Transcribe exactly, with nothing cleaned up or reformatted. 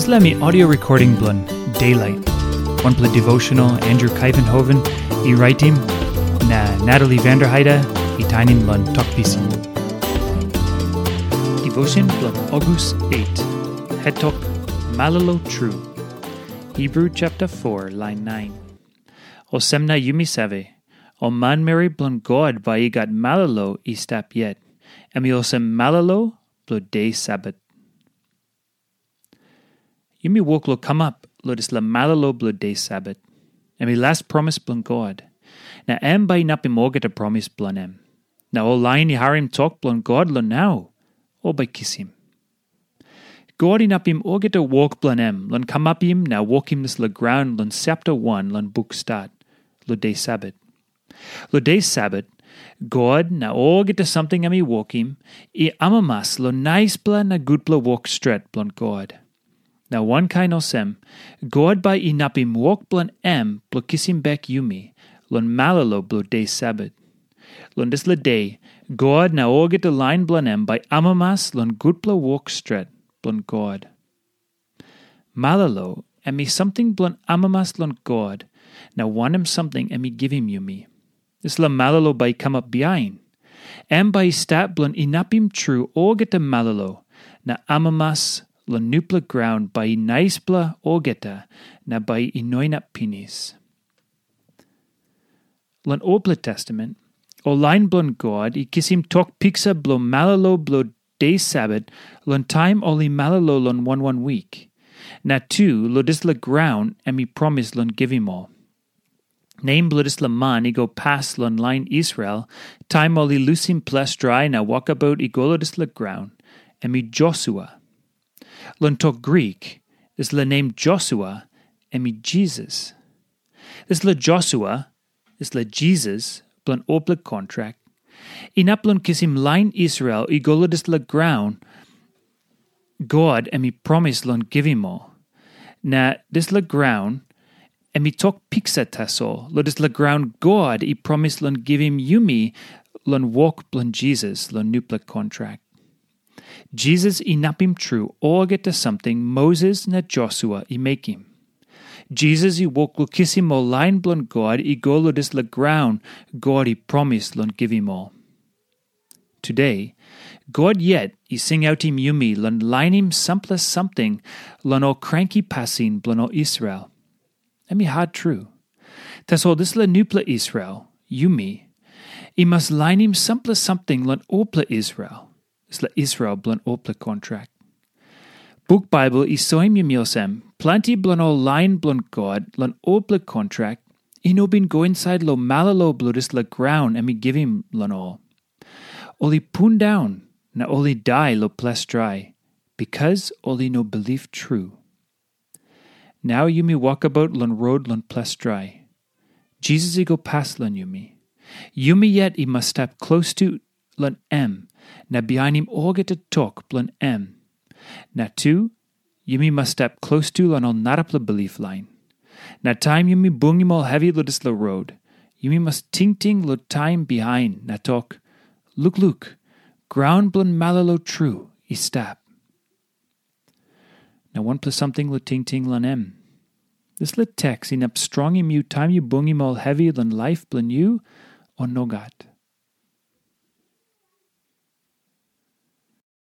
Dispela mi audio recording bilong Daylight, wanpela devotional Andrew Kaivenhoven i raitim, na Natalie Vanderheide i tainim long Tok Pisin. Devotion bilong August eight, hetok Malolo Tru. Hebrew chapter four, line nine. Olsem na yumi save, ol manmeri bilong God bai i gat malolo i stap yet, em i olsem malolo bilong de Sabat. Yumi wok long kamap long dispela malolo bilong de Sabat. Em i las promis bilong God, na em bai inapim olgeta promis bilong em. Na ol lain i harim tok bilong God long nau, ol bai kisim. God inapim olgeta wok bilong em long kamapim na wokim dispela graun long sapta wan long buk Stat, long de Sabat. Long de Sabat, God na olgeta samting em i wokim, i amamas long naispela na gutpela wok stret bilong God. Na wankain olsem, God bai inapim wok bilong em bilong kisim bek yumi long malolo bilong de Sabat. Long dispela de, God na olgeta lain bilong em bai amamas long gutpela wok stret bilong God. Malolo em i samting bilong amamas long God, na wanem samting em i givim yumi. Dispela malolo bai i kamap bihain. Em bai i stap bilong inapim tru olgeta malolo, na amamas long nupela graun bai i naispela olgeta, na bai i no inap pinis. Long Olpela Testament, ol lain bilong God i kisim tok piksa bilong malolo bilong de Sabat long taim ol i malolo long wan wan wik, na tu long dispela graun em i promis long givim ol. Nem bilong dispela man i go pas long lain Israel, taim ol i lusim ples drai na wokabaut i go long dispela graun, em i Josua. Long tok Grik, dispela nem Josua em i Jisas. Dispela Josua, dispela Jisas bilong olpela kontrak, inap long kisim lain Israel i go long dispela graun God em i promis long givim ol. Na dispela graun em i tok piksa tasol long dispela graun God i promis long givim yumi long wok bilong Jisas long nupela kontrak. Jisas inapim tru olgeta samting Moses na Josua i mekim. Jisas i wok long kisim ol lain bilong God i go long dispela graun God i promis long givim ol. Tude, God yet i singautim yumi long lainim sampela samting long ol kranki pasin bilong ol Israel. Em i hat tru. Tasol dispela nupela Israel, yumi, i mas lainim sampela samting long olpela Israel, dispela Israel bilong olpela kontrak. Buk Baibel i soim yumi olsem, planti bilong ol lain bilong God long olpela kontrak i no bin go insait long malolo bilong dispela graun em i givim long ol. Ol i pundaun na ol i dai long ples drai, bikas ol i no bilip tru. Nau yumi wokabaut long rot long ples drai. Jisas i go pas long yumi. Yumi yet i mas stap klostu long em na bihainim olgeta tok bilong em. Na tu, yumi mas stap klostu long ol narapela bilip lain. Na taim yumi bungim ol hevi long dispela rot, yumi mas tingting long taim bihain na tok, "Lukluk, graun bilong malolo tru i stap." Na wanpela samting long tingting long em. Dispela teks inap strongim yu taim yu bungim ol hevi long laip bilong yu, o nogat?